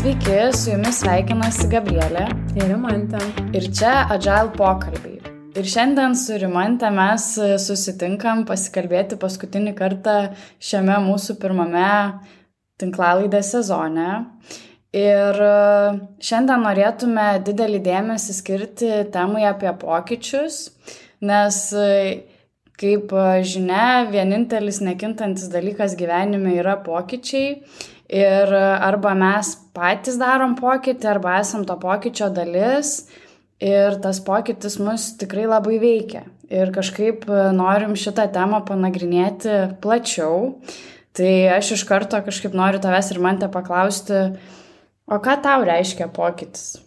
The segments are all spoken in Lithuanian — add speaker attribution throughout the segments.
Speaker 1: Sveiki, su jumis sveikinasi Gabrielė
Speaker 2: ir Rimantė.
Speaker 1: Ir čia Agile pokalbiai. Ir šiandien su Rimantė mes susitinkam pasikalbėti paskutinį kartą šiame mūsų pirmame tinklalaidės sezone. Ir šiandien norėtume didelį dėmesį skirti temai apie pokyčius, nes kaip žinia, vienintelis nekintantis dalykas gyvenime yra pokyčiai. Ir arba mes patys darom pokytį, arba esam to pokyčio dalis ir tas pokytis mus tikrai labai veikia. Ir kažkaip norim šitą temą panagrinėti plačiau. Tai aš iš karto kažkaip noriu tavęs ir Rimantė paklausti, o ką tau reiškia pokytis?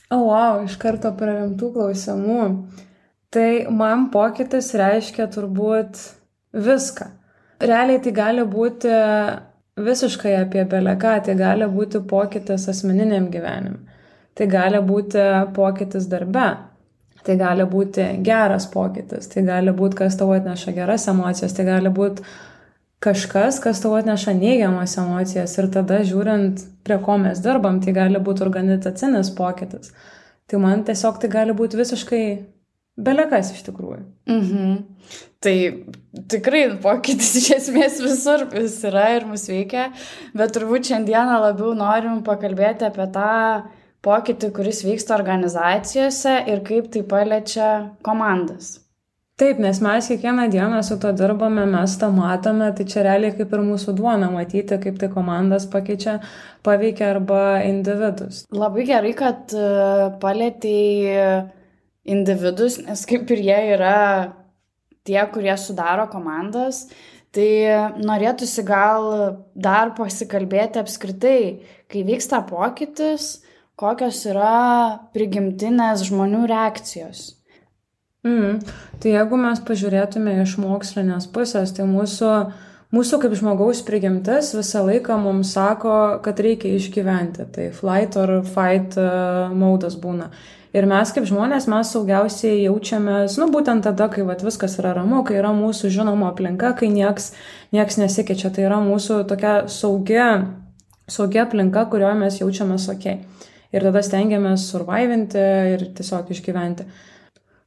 Speaker 2: Wow, iš karto prie rimtų klausimų. Tai man pokytis reiškia turbūt viską. Realiai tai gali būti visiškai apie beleką, tai gali būti pokytis asmeniniam gyvenime, tai gali būti pokytis darbe, tai gali būti geras pokytis, tai gali būti, kas tau atneša geras emocijas, tai gali būti kažkas, kas tau atneša neigiamas emocijas ir tada žiūrint, prie ko mes dirbam, tai gali būti organizacinis pokytis. Tai man tiesiog tai gali būti visiškai belekas iš tikrųjų.
Speaker 1: Tai tikrai pokytis iš esmės visur vis yra ir mus veikia, bet turbūt šiandieną labiau norim pakalbėti apie tą pokytį, kuris vyksta organizacijose ir kaip tai paliečia komandas.
Speaker 2: Taip, nes mes kiekvieną dieną su to dirbame, mes tą matome, tai čia realiai kaip ir mūsų duona matyti, kaip tai komandas paveikia arba individus.
Speaker 1: Labai gerai, kad palietei individus, nes kaip ir jie yra tie, kurie sudaro komandas, tai norėtųsi gal dar pasikalbėti apskritai, kai vyksta pokytis, kokios yra prigimtinės žmonių reakcijos.
Speaker 2: Tai jeigu mes pažiūrėtume iš mokslinės pusės, tai mūsų kaip žmogaus prigimtis visą laiką mums sako, kad reikia išgyventi. Tai flight or fight modas būna. Ir mes kaip žmonės, mes saugiausiai jaučiamės, būtent tada, kai viskas yra ramu, kai yra mūsų žinoma aplinka, kai nieks nesikeičia. Tai yra mūsų tokia saugia aplinka, kurioje mes jaučiamės ok. Ir tada stengiamės survivinti ir tiesiog išgyventi.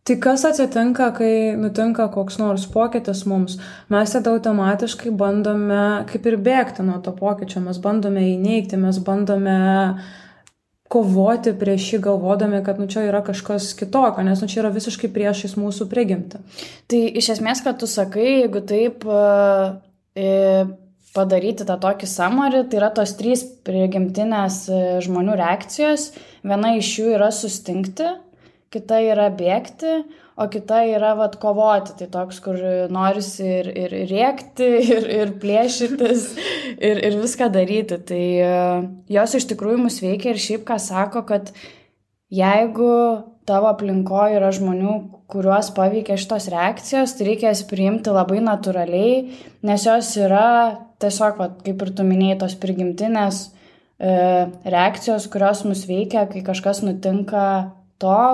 Speaker 2: Tai kas atsitinka, kai nutinka koks nors pokytis mums? Mes tada automatiškai bandome kaip ir bėgti nuo to pokyčio, mes bandome įneigti, mes bandome kovoti prieš jį, galvodami, kad čia yra kažkas kitokio, nes čia yra visiškai priešais mūsų prigimtį.
Speaker 1: Tai iš esmės, kad tu sakai, jeigu taip padaryti tą tokį summary, tai yra tos 3 prigimtinės žmonių reakcijos. Viena iš jų yra sustingti, kita yra bėgti, o kita yra kovoti. Tai toks, kur norisi ir rėkti, ir plėšytis, ir viską daryti. Tai jos iš tikrųjų mus veikia ir šiaip ką sako, kad jeigu tavo aplinkoje yra žmonių, kuriuos paveikia šitos reakcijos, tai reikia jas priimti labai natūraliai, nes jos yra tiesiog, kaip ir tu minėjai, tos prigimtinės reakcijos, kurios mus veikia, kai kažkas nutinka to,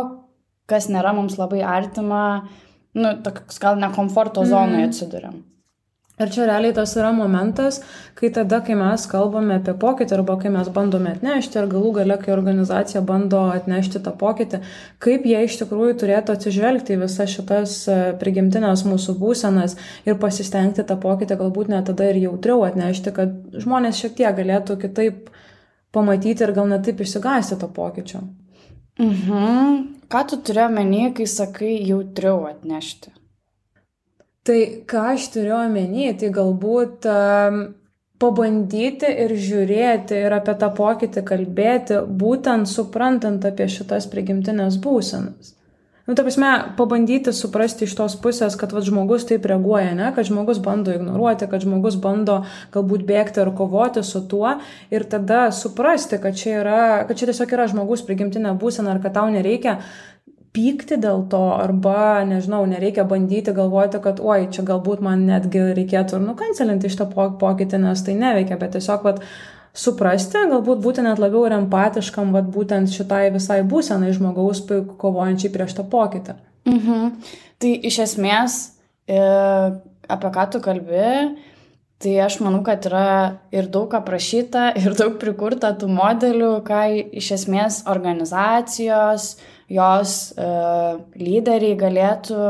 Speaker 1: kas nėra mums labai artima, toks gal ne komforto zonoje atsiduriam.
Speaker 2: Ir čia realiai tas yra momentas, kai mes kalbame apie pokytį arba kai mes bandome atnešti ir galų gale, kai organizacija bando atnešti tą pokytį, kaip jie iš tikrųjų turėtų atsižvelgti į visas šitas prigimtinės mūsų būsenas ir pasistengti tą pokytį galbūt net tada ir jautriau atnešti, kad žmonės šiek tiek galėtų kitaip pamatyti ir gal net taip išsigąsti to pokyčio.
Speaker 1: Ką tu turi omeny, kai sakai jautriau atnešti?
Speaker 2: Tai ką aš turiu omeny, tai galbūt pabandyti ir žiūrėti ir apie tą pokytį kalbėti, būtent suprantant apie šitas prigimtinės būsenas. Ta prasme, pabandyti suprasti iš tos pusės, kad žmogus taip reaguoja, ne? Kad žmogus bando ignoruoti, kad žmogus bando galbūt bėgti ar kovoti su tuo ir tada suprasti, kad čia tiesiog yra žmogus prigimtinė būsena ir kad tau nereikia pykti dėl to arba, nereikia bandyti galvoti, kad čia galbūt man netgi reikėtų nukancelinti šitą pokytį, nes tai neveikia, bet tiesiog suprasti, galbūt būti net labiau ir empatiškam, būtent šitai visai būsenai žmogaus kovojančiai prieš tą pokytį.
Speaker 1: Tai iš esmės, apie ką tu kalbi, Tai aš manau, kad yra ir daug aprašyta, ir daug prikurta tų modelių, ką iš esmės organizacijos, jos lyderiai galėtų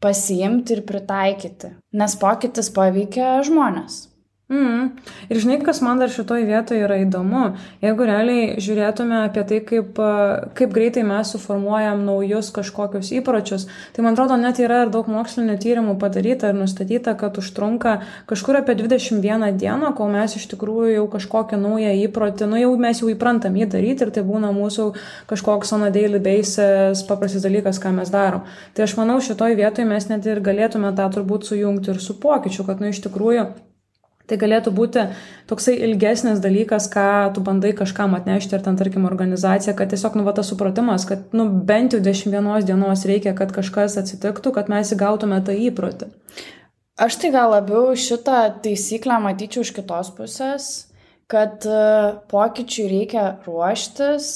Speaker 1: pasiimti ir pritaikyti, nes pokytis paveikia žmonės.
Speaker 2: Ir žinai, kas man dar šitoj vietoje yra įdomu, jeigu realiai žiūrėtume apie tai, kaip greitai mes suformuojam naujus kažkokius įpročius, tai man atrodo, net yra ir daug mokslinių tyrimų padaryta ir nustatyta, kad užtrunka kažkur apie 21 dieną, kol mes iš tikrųjų jau kažkokią naują įprotį, jau mes jau įprantam jį daryti ir tai būna mūsų kažkoks on a daily basis paprastas dalykas, ką mes darom. Tai aš manau, šitoj vietoje mes net ir galėtume tą turbūt sujungti ir su pokyčiu, kad iš tikrųjų tai galėtų būti toksai ilgesnis dalykas, ką tu bandai kažkam atnešti, ar ten, tarkim, organizacija, kad tiesiog, tas supratimas, kad, bent jau 21 dienos reikia, kad kažkas atsitiktų, kad mes įgautume tą įprotį.
Speaker 1: Aš tai gal labiau šitą taisyklę matyčiau iš kitos pusės, kad pokyčiui reikia ruoštis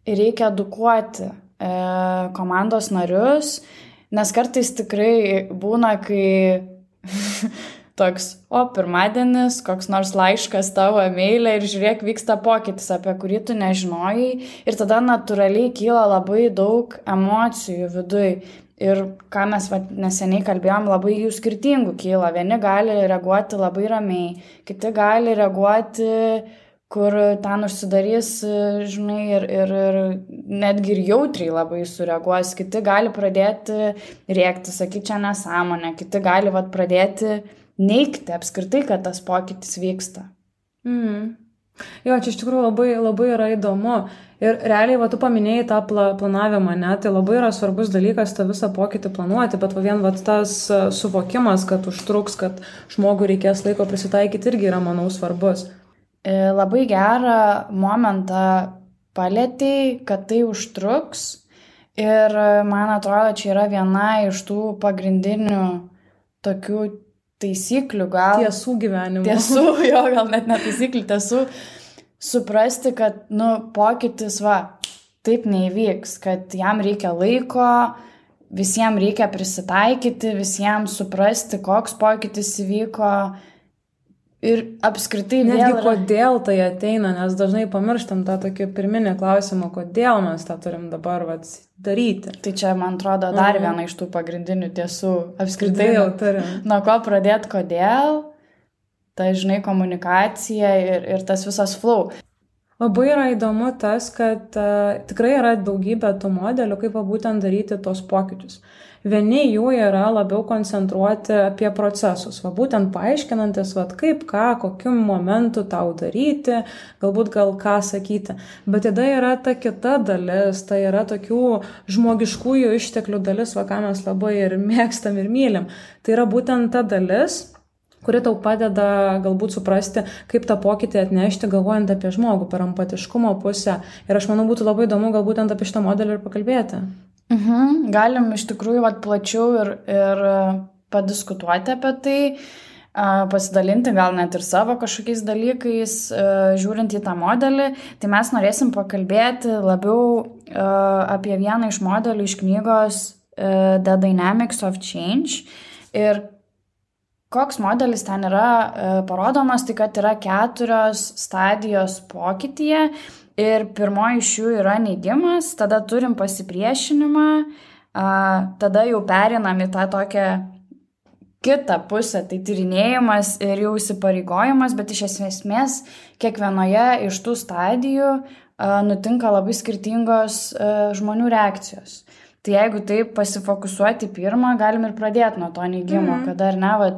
Speaker 1: ir reikia edukuoti komandos narius, nes kartais tikrai būna, kai toks, pirmadienis, koks nors laiškas tavo e-mailė ir žiūrėk, vyksta pokytis, apie kurį tu nežinojai ir tada natūraliai kyla labai daug emocijų viduj. Ir ką mes neseniai kalbėjom, labai jų skirtingų kyla. Vieni gali reaguoti labai ramiai, kiti gali reaguoti, kur ten užsidarys, žinai, ir netgi ir jautriai labai sureaguos. Kiti gali pradėti rėkti, sakyti, čia nesąmonė, kiti gali pradėti neigti apskritai, kad tas pokytis vyksta.
Speaker 2: Jo, čia iš tikrųjų labai, labai yra įdomu. Ir realiai, tu paminėjai tą planavimą, ne? Tai labai yra svarbus dalykas tą visą pokytį planuoti, bet vien tas suvokimas, kad užtruks, kad žmogui reikės laiko prisitaikyti, irgi yra, manau, svarbus.
Speaker 1: Labai gerą momentą palėtei, kad tai užtruks. Ir man atrodo, čia yra viena iš tų pagrindinių tokių taisyklių, gal.
Speaker 2: Tiesų gyvenimo.
Speaker 1: Tiesų, gal net ne taisyklių, tiesų. Suprasti, kad, pokytis, taip neįvyks, kad jam reikia laiko, visiems reikia prisitaikyti, visiems suprasti, koks pokytis įvyko. Ir apskritai
Speaker 2: netgi kodėl tai ateina, nes dažnai pamirštam tą tokį pirminį klausimą, kodėl mes tą turim dabar daryti.
Speaker 1: Tai čia, man atrodo, dar viena iš tų pagrindinių tiesų. Apskritai
Speaker 2: jau turim.
Speaker 1: Nuo ko pradėti, kodėl, tai, žinai, komunikacija ir tas visas flow.
Speaker 2: Labai yra įdomu tas, kad tikrai yra daugybė tų modelių, kaip būtent daryti tos pokyčius. Vieni jų yra labiau koncentruoti apie procesus, būtent paaiškinantis, kaip, ką, kokiu momentu tau daryti, galbūt ką sakyti. Bet tada yra ta kita dalis, tai yra tokių žmogiškųjų išteklių dalis, ką mes labai ir mėgstam ir mylim. Tai yra būtent ta dalis, kuri tau padeda galbūt suprasti, kaip tą pokytį atnešti, galvojant apie žmogų, per empatiškumo pusę. Ir aš manau, būtų labai įdomu gal būtent apie šitą modelį ir pakalbėti.
Speaker 1: Galim iš tikrųjų plačiau ir padiskutuoti apie tai, pasidalinti gal net ir savo kažkokiais dalykais, žiūrint į tą modelį. Tai mes norėsim pakalbėti labiau apie vieną iš modelių iš knygos The Dynamics of Change. Ir koks modelis ten yra parodomas, tai kad yra 4 stadijos pokytyje. Ir pirmoji iš jų yra neigimas, tada turim pasipriešinimą, tada jau perinam į tą tokią kitą pusę, tai tyrinėjimas ir jau įsipareigojimas, bet iš esmės kiekvienoje iš tų stadijų nutinka labai skirtingos žmonių reakcijos. Tai jeigu taip pasifokusuoti pirmą, galim ir pradėti nuo to neigimo, kada ar ne,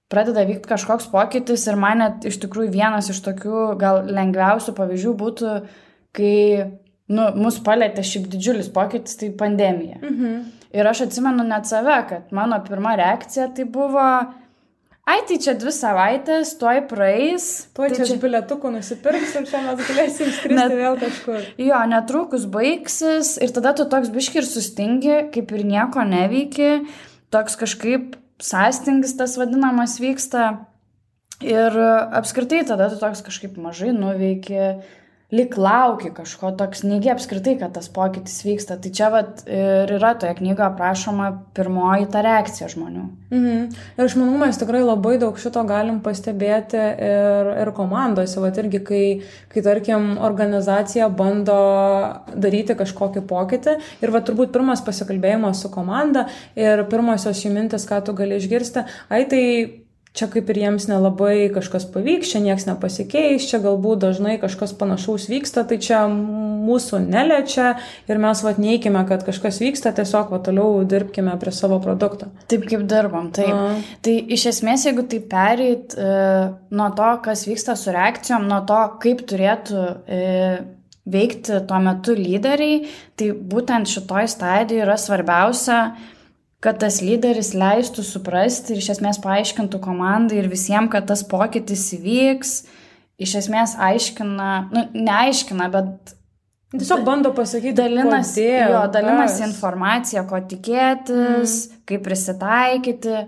Speaker 1: pradeda vykti kažkoks pokytis ir man net iš tikrųjų vienas iš tokių gal lengviausių pavyzdžių būtų, kai mus palėtė šiaip didžiulis pokytis, tai pandemija. Ir aš atsimenu net save, kad mano pirma reakcija tai buvo, tai čia 2 savaitės, tuoj praeis.
Speaker 2: Tuoj čia bilietukų nusipirks ir čia mes galėsim skristi vėl kažkur.
Speaker 1: Jo, netrukus baigsis ir tada tu toks biški ir sustingi, kaip ir nieko neveiki, toks kažkaip sąstingis tas vadinamas vyksta ir apskritai tada tu toks kažkaip mažai nuveiki, lyg lauki kažko, toks neigi apskritai, kad tas pokytis vyksta. Tai čia vat ir yra toje knygoje aprašoma pirmoji ta reakcija žmonių.
Speaker 2: Ir aš manau, mes tikrai labai daug šito galim pastebėti ir komandose. Vat irgi, kai tarkim, organizacija bando daryti kažkokį pokytį ir va turbūt pirmas pasikalbėjimas su komanda ir pirmosios jų mintis, ką tu gali išgirsti, tai čia kaip ir jiems nelabai kažkas pavyks, čia nieks nepasikeis, čia galbūt dažnai kažkas panašaus vyksta, tai čia mūsų neliečia ir mes neikime, kad kažkas vyksta, tiesiog toliau dirbkime prie savo produkto.
Speaker 1: Taip kaip dirbam, taip. Tai iš esmės, jeigu tai pereit nuo to, kas vyksta su reakcijom, nuo to, kaip turėtų veikti tuo metu lyderiai, tai būtent šitoj stadijoje yra svarbiausia, kad tas lyderis leistų suprasti ir iš esmės paaiškintų komandai ir visiems, kad tas pokytis įvyks, iš esmės aiškina, neaiškina, bet
Speaker 2: tiesiog bando pasakyti,
Speaker 1: dalinasi informaciją, ko tikėtis, kaip prisitaikyti.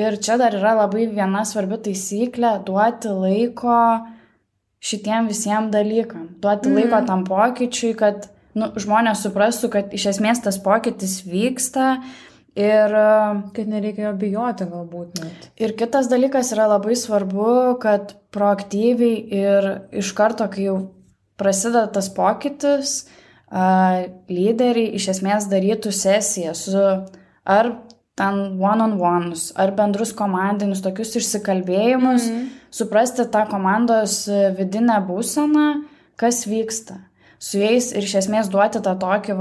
Speaker 1: Ir čia dar yra labai viena svarbi taisyklė – duoti laiko šitiem visiems dalykam. Duoti laiko tam pokyčiui, kad žmonės suprastų, kad iš esmės tas pokytis vyksta. Ir
Speaker 2: kad nereikia jo bijoti galbūt net.
Speaker 1: Ir kitas dalykas yra labai svarbu, kad proaktyviai ir iš karto, kai jau prasideda tas pokytis, lyderiai iš esmės darytų sesiją su ar ten one-on-ones, ar bendrus komandinius tokius išsikalbėjimus, suprasti tą komandos vidinę būseną, kas vyksta. Su jais ir iš esmės duoti tą tokį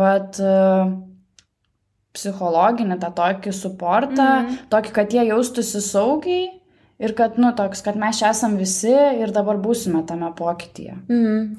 Speaker 1: psichologinį, tą tokį suportą, tokį, kad jie jaustųsi saugiai ir kad, toks, kad mes čia esam visi ir dabar būsime tame pokytyje.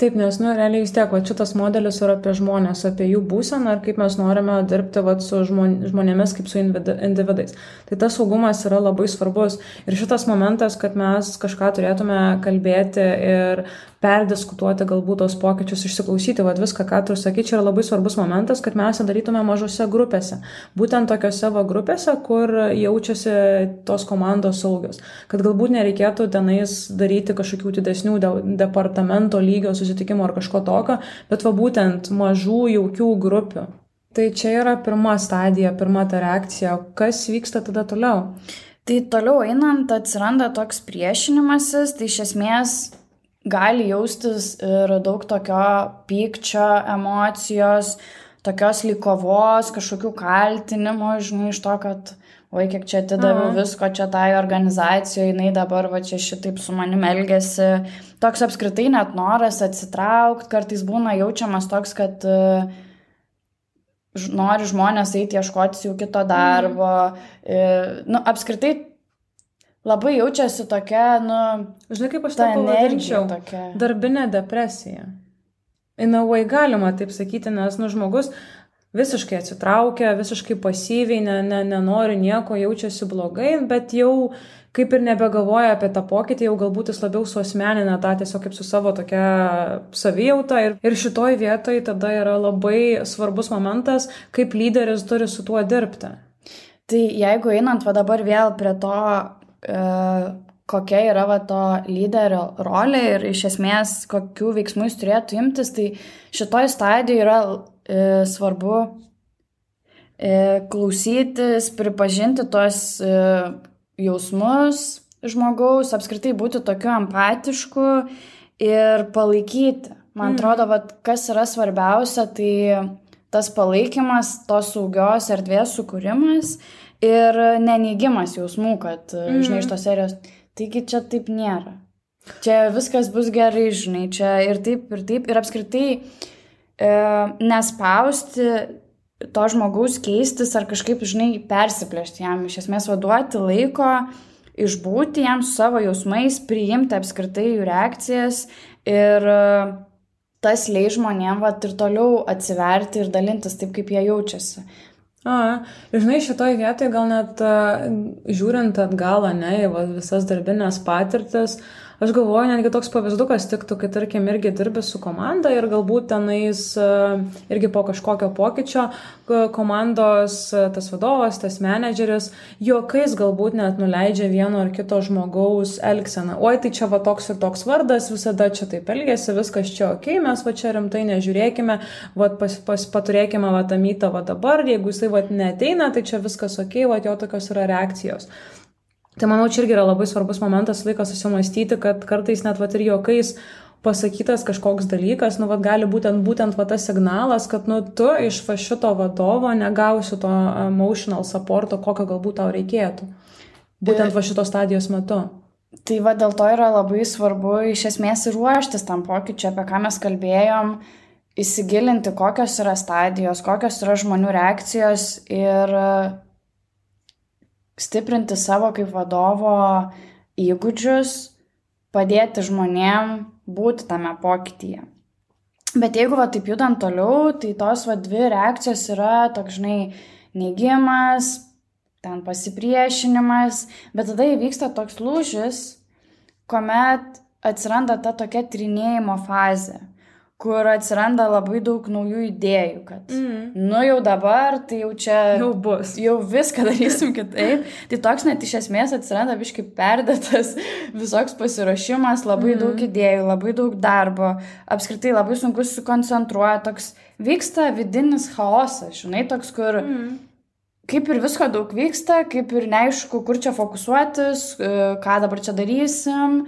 Speaker 2: Taip, nes, realiai vis tiek, šitas modelis yra apie žmonės, apie jų būseną ir kaip mes norime dirbti su žmonėmis kaip su individais. Tai tas saugumas yra labai svarbus ir šitas momentas, kad mes kažką turėtume kalbėti ir perdiskutuoti galbūt tos pokyčius, išsiklausyti, viską, ką tu sakai, čia yra labai svarbus momentas, kad mes darytume mažose grupėse. Būtent tokiose grupėse, kur jaučiasi tos komandos saugios. Kad galbūt nereikėtų tenais daryti kažkokių didesnių departamento lygio susitikimų ar kažko tokio, bet būtent mažų jaukių grupių. Tai čia yra pirma stadija, pirma ta reakcija. Kas vyksta tada toliau?
Speaker 1: Tai toliau einant atsiranda toks priešinimasis, tai iš esmės gali jaustis ir daug tokio pykčio, emocijos, tokios lygovos, kažkokių kaltinimų, iš to, kad kiek čia atidaviau visko čia tai organizacijoje, jinai dabar čia šitaip su manim elgiasi. Toks apskritai net noras atsitraukti, kartais būna jaučiamas toks, kad nori žmonės eiti ieškoti jau kito darbo. Apskritai labai jaučiasi tokia,
Speaker 2: žinai, kaip aš tą pavadinčiau, darbinė depresija. Inavai galima taip sakyti, nes žmogus visiškai atsitraukia, visiškai pasyviai, nenori nieko, jaučiasi blogai, bet jau kaip ir nebegalvoja apie tą pokytį, jau galbūt jis labiau suasmenina tą tiesiog kaip su savo tokia savijauta. Ir šitoj vietoj tada yra labai svarbus momentas, kaip lyderis turi su tuo dirbti.
Speaker 1: Tai jeigu einant dabar vėl prie to, kokia yra to lyderio rolė ir iš esmės kokių veiksmų jis turėtų imtis, tai šitoj stadijoje yra svarbu klausytis, pripažinti tuos jausmus žmogaus, apskritai būti tokiu empatišku ir palaikyti. Man atrodo, kas yra svarbiausia, tai tas palaikymas, tos saugios erdvės sukūrimas ir neneigimas jausmų, kad, žinai, iš tos serijos, taigi čia taip nėra. Čia viskas bus gerai, žinai, čia ir taip, ir apskritai nespausti to žmogaus keistis ar kažkaip, žinai, persiplėšti jam, iš esmės duoti laiko, išbūti jam su savo jausmais, priimti apskritai jų reakcijas ir tas leis žmonėm ir toliau atsiverti ir dalintis taip, kaip jie jaučiasi.
Speaker 2: Žinai, šitoj vietoj gal net žiūrint atgal, visas darbinės patirtis, Aš galvoju, netgi toks pavyzdukas tiktų, kai tarkim irgi dirbi su komanda ir galbūt tenais irgi po kažkokio pokyčio komandos tas vadovas, tas menedžeris juokais galbūt net nuleidžia vieno ar kito žmogaus elgseną. Oi, tai čia va toks ir toks vardas, visada čia taip elgėsi, viskas čia ok, mes va čia rimtai nežiūrėkime, va paturėkime va tą mytą va dabar, jeigu jisai va neateina, tai čia viskas ok, va jo tokios yra reakcijos. Tai manau, čia irgi yra labai svarbus momentas, laikas susimastyti, kad kartais net vat ir juokais pasakytas kažkoks dalykas, nu vat gali būtent va tas signalas, kad nu tu iš va šito vadovo negausi to emotional supporto, kokio galbūt tau reikėtų. Būtent va šitos stadijos metu.
Speaker 1: Tai va dėl to yra labai svarbu iš esmės ir ruoštis tam pokyčiui, apie ką mes kalbėjom, įsigilinti, kokios yra stadijos, kokios yra žmonių reakcijos ir stiprinti savo kaip vadovo įgūdžius, padėti žmonėm būti tame pokytyje. Bet jeigu va taip judant toliau, tai tos va dvi reakcijos yra toks, žinai, neigimas, ten pasipriešinimas, bet tada įvyksta toks lūžis, kuomet atsiranda ta tokia trinėjimo fazė, kur atsiranda labai daug naujų idėjų, kad nu jau dabar, tai jau čia jau viską darysim kitaip. Tai toks net iš esmės atsiranda biškai perdėtas visoks pasiruošimas, labai daug idėjų, labai daug darbo, apskritai labai sunku susikoncentruoti, toks vyksta vidinis chaosas, žinai, toks, kur kaip ir visko daug vyksta, kaip ir neaišku, kur čia fokusuotis, ką dabar čia darysim.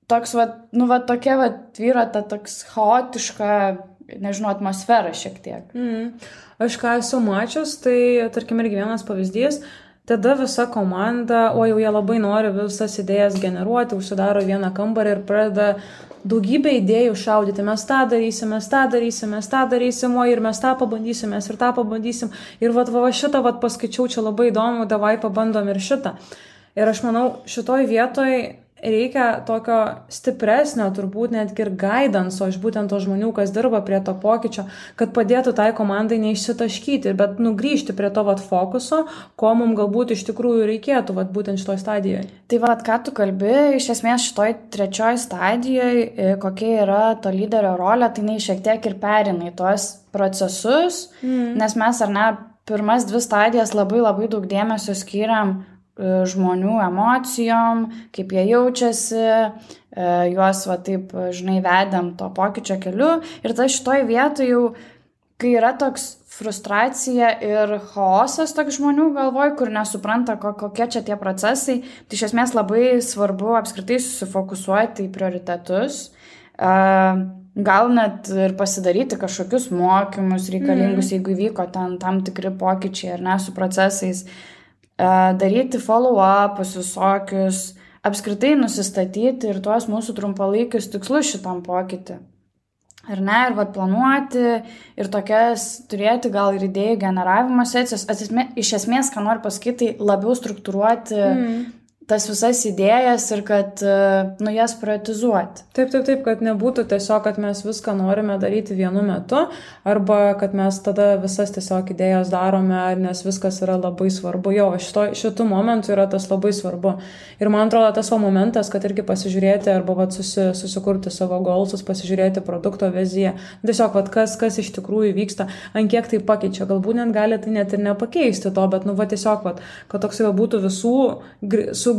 Speaker 1: Toks, nu, tokia, vyro ta toks chaotiška, nežinau, atmosfera šiek tiek.
Speaker 2: Aš ką esu mačius, tai, tarkim, irgi vienas pavyzdys, tada visa komanda, o jau jie labai nori visas idėjas generuoti, užsidaro vieną kambarį ir pradeda daugybę idėjų šaudyti. Mes tą darysim, o ir mes tą pabandysim, mes ir tą pabandysim. Ir va šitą paskaičiau, čia labai įdomu, davai pabandom ir šitą. Ir aš manau, šitoj vietoj reikia tokio stipresnio, turbūt netgi ir guidance iš būtent to žmonių, kas dirba prie to pokyčio, kad padėtų tai komandai neišsitaškyti, bet nugrįžti prie to fokuso, ko mums galbūt iš tikrųjų reikėtų būtent šitoj stadijoje.
Speaker 1: Tai ką tu kalbi, iš esmės šitoj trečioj stadijoje, kokia yra to lyderio rolė, tai jinai šiek tiek ir perina į tuos procesus, nes mes ar ne, pirmas 2 stadijas labai daug dėmesio skiriam žmonių emocijom, kaip jie jaučiasi, juos taip, žinai, vedėm to pokyčio keliu. Ir tai šitoj vietoj jau, kai yra toks frustracija ir chaosas toks žmonių galvoj, kur nesupranta, kokie čia tie procesai, tai iš esmės labai svarbu apskritai susifokusuoti į prioritetus, gal net ir pasidaryti kažkokius mokymus reikalingus, jeigu įvyko tam tikri pokyčiai ar ne su procesais, daryti follow-upus visokius, apskritai nusistatyti ir tuos mūsų trumpalaikius tikslus šitam pokytį. Ar ne, ir planuoti, ir tokias turėti gal ir idėjų generavimo sesijas. Iš esmės, ką noriu pasakyti, labiau struktūruoti tas visas idėjas ir kad, jas prioritizuoti.
Speaker 2: Taip, kad nebūtų tiesiog, kad mes viską norime daryti vienu metu, arba kad mes tada visas tiesiog idėjas darome, nes viskas yra labai svarbu. Jo, šitų momentų yra tas labai svarbu. Ir man atrodo, tas momentas, kad irgi pasižiūrėti, arba susikurti savo goalsus, pasižiūrėti produkto viziją, tiesiog, kas iš tikrųjų vyksta, ant kiek tai pakeičia. Galbūt net gali tai net ir nepakeisti to, bet, tiesiog, kad toksai būtų visų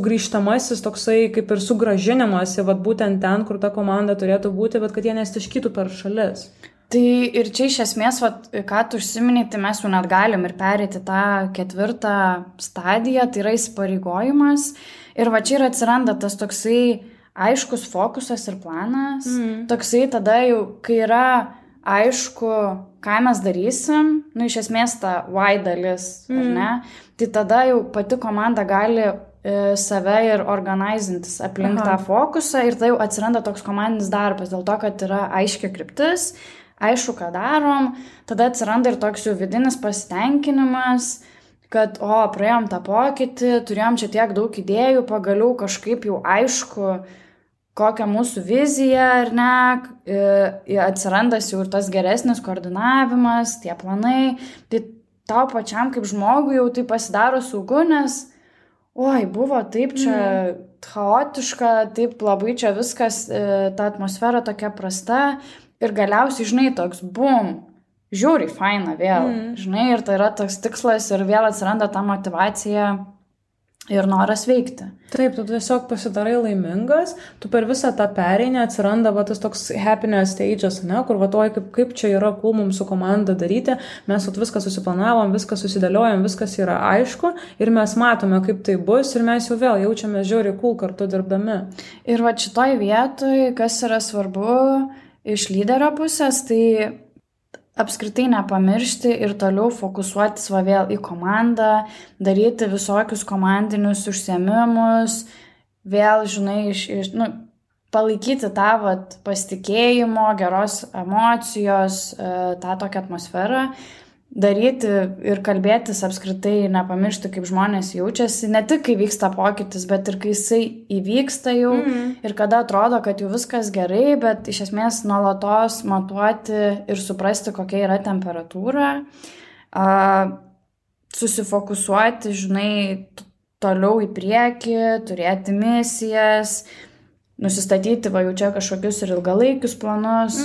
Speaker 2: grįžtamasis toksai kaip ir sugrąžinimas į būtent ten, kur ta komanda turėtų būti, bet kad jie nestiškytų per šalis.
Speaker 1: Tai ir čia iš esmės, ką tu užsiminei, tai mes jau net galim ir pereiti tą 4 stadiją, tai yra įsipareigojimas. Ir čia ir atsiranda tas toksai aiškus fokusas ir planas. Toksai tada jau, kai yra aišku, ką mes darysim, iš esmės ta why dalis, ar ne? Tai tada jau pati komanda gali save ir organizintis aplink tą fokusą ir tai jau atsiranda toks komandinis darbas, dėl to, kad yra aiški kryptis, aišku, ką darom, tada atsiranda ir toks jau vidinis pasitenkinimas, kad, praėjom tą pokytį, turėjom čia tiek daug idėjų, pagaliau kažkaip jau aišku, kokia mūsų vizija, ar ne, atsirandas jau ir tas geresnis koordinavimas, tie planai, tai tau pačiam kaip žmogui jau tai pasidaro saugu, nes buvo taip čia chaotiška, taip labai čia viskas, ta atmosfera tokia prasta ir galiausiai, žinai, toks bum, žiūri, faina vėl, žinai, ir tai yra toks tikslas ir vėl atsiranda ta motyvacija ir noras veikti.
Speaker 2: Taip, tu tiesiog pasidarai laimingas, tu per visą tą pereinę atsiranda va, tas toks happiness stages, ne, kur va, kaip čia yra cool mums su komanda daryti, mes viską susiplanavom, viską susidėliojom, viskas yra aišku ir mes matome, kaip tai bus ir mes jau vėl jaučiame žiauriai cool kartu dirbdami.
Speaker 1: Ir va šitoj vietoj, kas yra svarbu iš lyderio pusės, tai apskritai nepamiršti ir toliau fokusuotis va vėl į komandą, daryti visokius komandinius užsiėmimus, vėl, žinai, palaikyti tą pasitikėjimo, geros emocijos, tą tokią atmosferą, daryti ir kalbėtis apskritai, nepamiršti, kaip žmonės jaučiasi, ne tik kai vyksta pokytis, bet ir kai jisai įvyksta jau ir kada atrodo, kad jau viskas gerai, bet iš esmės nuolatos matuoti ir suprasti, kokia yra temperatūra, susifokusuoti, žinai, toliau į priekį, turėti misijas, nusistatyti, va jau čia kažkokius ir ilgalaikius planus.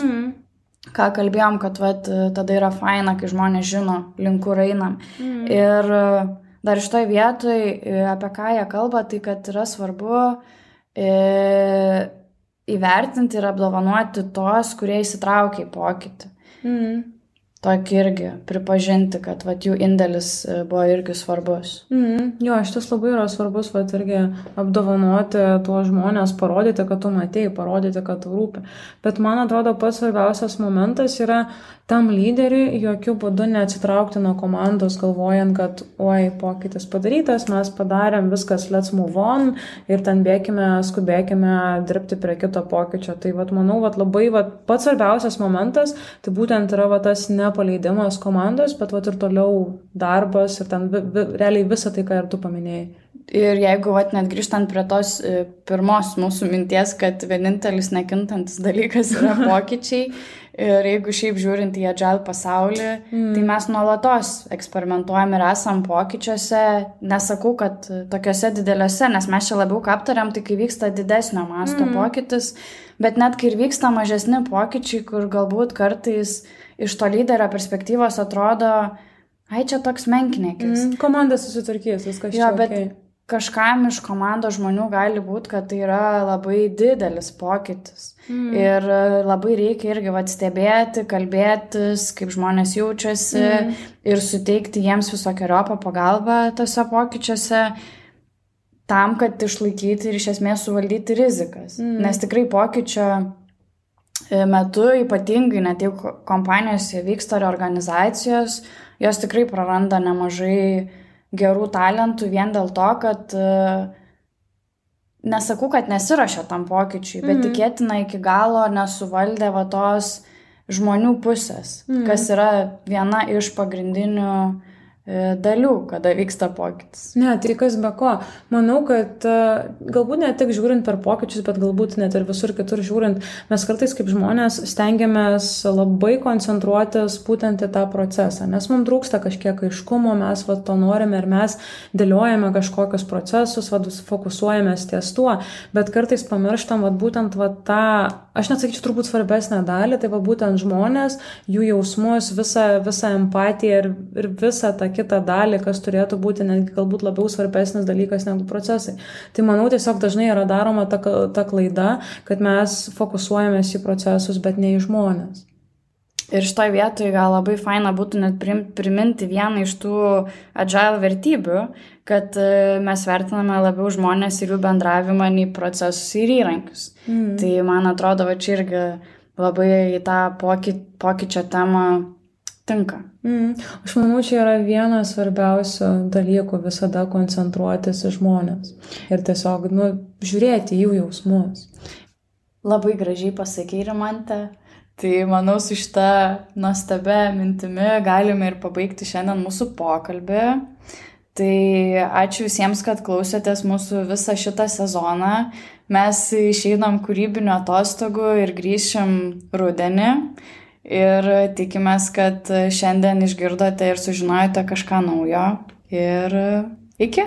Speaker 1: Ką kalbėjom, kad tada yra faina, kai žmonės žino, link kur einam. Ir dar šitoj vietoj, apie ką jie kalba, tai kad yra svarbu įvertinti ir apdovanoti tos, kurie įsitraukia į pokytį. Tokį irgi pripažinti, kad jų indėlis buvo irgi svarbus.
Speaker 2: Jo, šitas labai yra svarbus, irgi apdovanoti tuos žmonės, parodyti, kad tu matei, parodyti, kad tu rūpi. Bet man atrodo, pats svarbiausias momentas yra tam lyderiui jokių būdų neatsitraukti nuo komandos, galvojant, kad oi, pokytis padarytas, mes padarėm viskas, let's move on ir ten skubėkime dirbti prie kito pokyčio. Tai manau, labai pats svarbiausias momentas, tai būtent yra tas nepaleidimas komandos, bet ir toliau darbas ir ten realiai visą tai, ką ir tu paminėjai.
Speaker 1: Ir jeigu net grįžtant prie tos pirmos mūsų minties, kad vienintelis nekintantis dalykas yra pokyčiai, ir jeigu šiaip žiūrint į agile pasaulį, tai mes nuolatos eksperimentuojam ir esam pokyčiuose, nesakau, kad tokiuose dideliuose, nes mes čia labiau aptariam, tai kai vyksta didesnio masto pokytis, bet net kai ir vyksta mažesni pokyčiai, kur galbūt kartais iš to lyderio perspektyvos atrodo, ai čia toks menkniekis.
Speaker 2: Komanda susitvarkys, viskas čia
Speaker 1: okay. Kažkam iš komandos žmonių gali būti, kad tai yra labai didelis pokytis. Ir labai reikia irgi stebėti, kalbėtis, kaip žmonės jaučiasi ir suteikti jiems visokiojopą pagalbą tose pokyčiuose tam, kad išlaikyti ir iš esmės suvaldyti rizikas. Nes tikrai pokyčio metu, ypatingai net jau kompanijose vyksta reorganizacijos, jos tikrai praranda nemažai gerų talentų vien dėl to, kad nesakau, kad nesiruošia tam pokyčiui, bet tikėtina iki galo nesuvaldė tos žmonių pusės, kas yra viena iš pagrindinių dalių, kada vyksta pokytis.
Speaker 2: Ne, tai kas be ko. Manau, kad galbūt ne tik žiūrint per pokyčius, bet galbūt net ir visur kitur žiūrint, mes kartais kaip žmonės stengiamės labai koncentruotis būtent į tą procesą, nes mums trūksta kažkiek aiškumo, mes to norime ir mes dėliojame kažkokius procesus, fokusuojamės ties tuo, bet kartais pamirštam būtent tą, aš net sakyčiau, turbūt svarbesnę dalį, tai būtent žmonės, jų jausmus, visą empatiją ir visą tą kitą dalį, kas turėtų būti netgi galbūt labiau svarbesnis dalykas negu procesai. Tai manau, tiesiog dažnai yra daroma ta klaida, kad mes fokusuojamės į procesus, bet ne į žmonės.
Speaker 1: Ir šitoj vietoj gal labai faina būtų net priminti vieną iš tų agile vertybių, kad mes vertiname labiau žmonės ir jų bendravimą nei procesus ir įrankius. Tai man atrodo, čia irgi labai į tą pokyčio temą tinka.
Speaker 2: Aš manau, čia yra vienas svarbiausių dalykų visada koncentruotis į žmonės ir tiesiog žiūrėti jų jausmus.
Speaker 1: Labai gražiai pasakei, Rimante. Tai manau, su šita nuostabia mintimi galime ir pabaigti šiandien mūsų pokalbį. Tai ačiū visiems, kad klausėtės mūsų visą šitą sezoną. Mes išeinam kūrybinio atostogų ir grįšim rudenį. Ir tikimės, kad šiandien išgirdote ir sužinojote kažką naujo. Ir iki.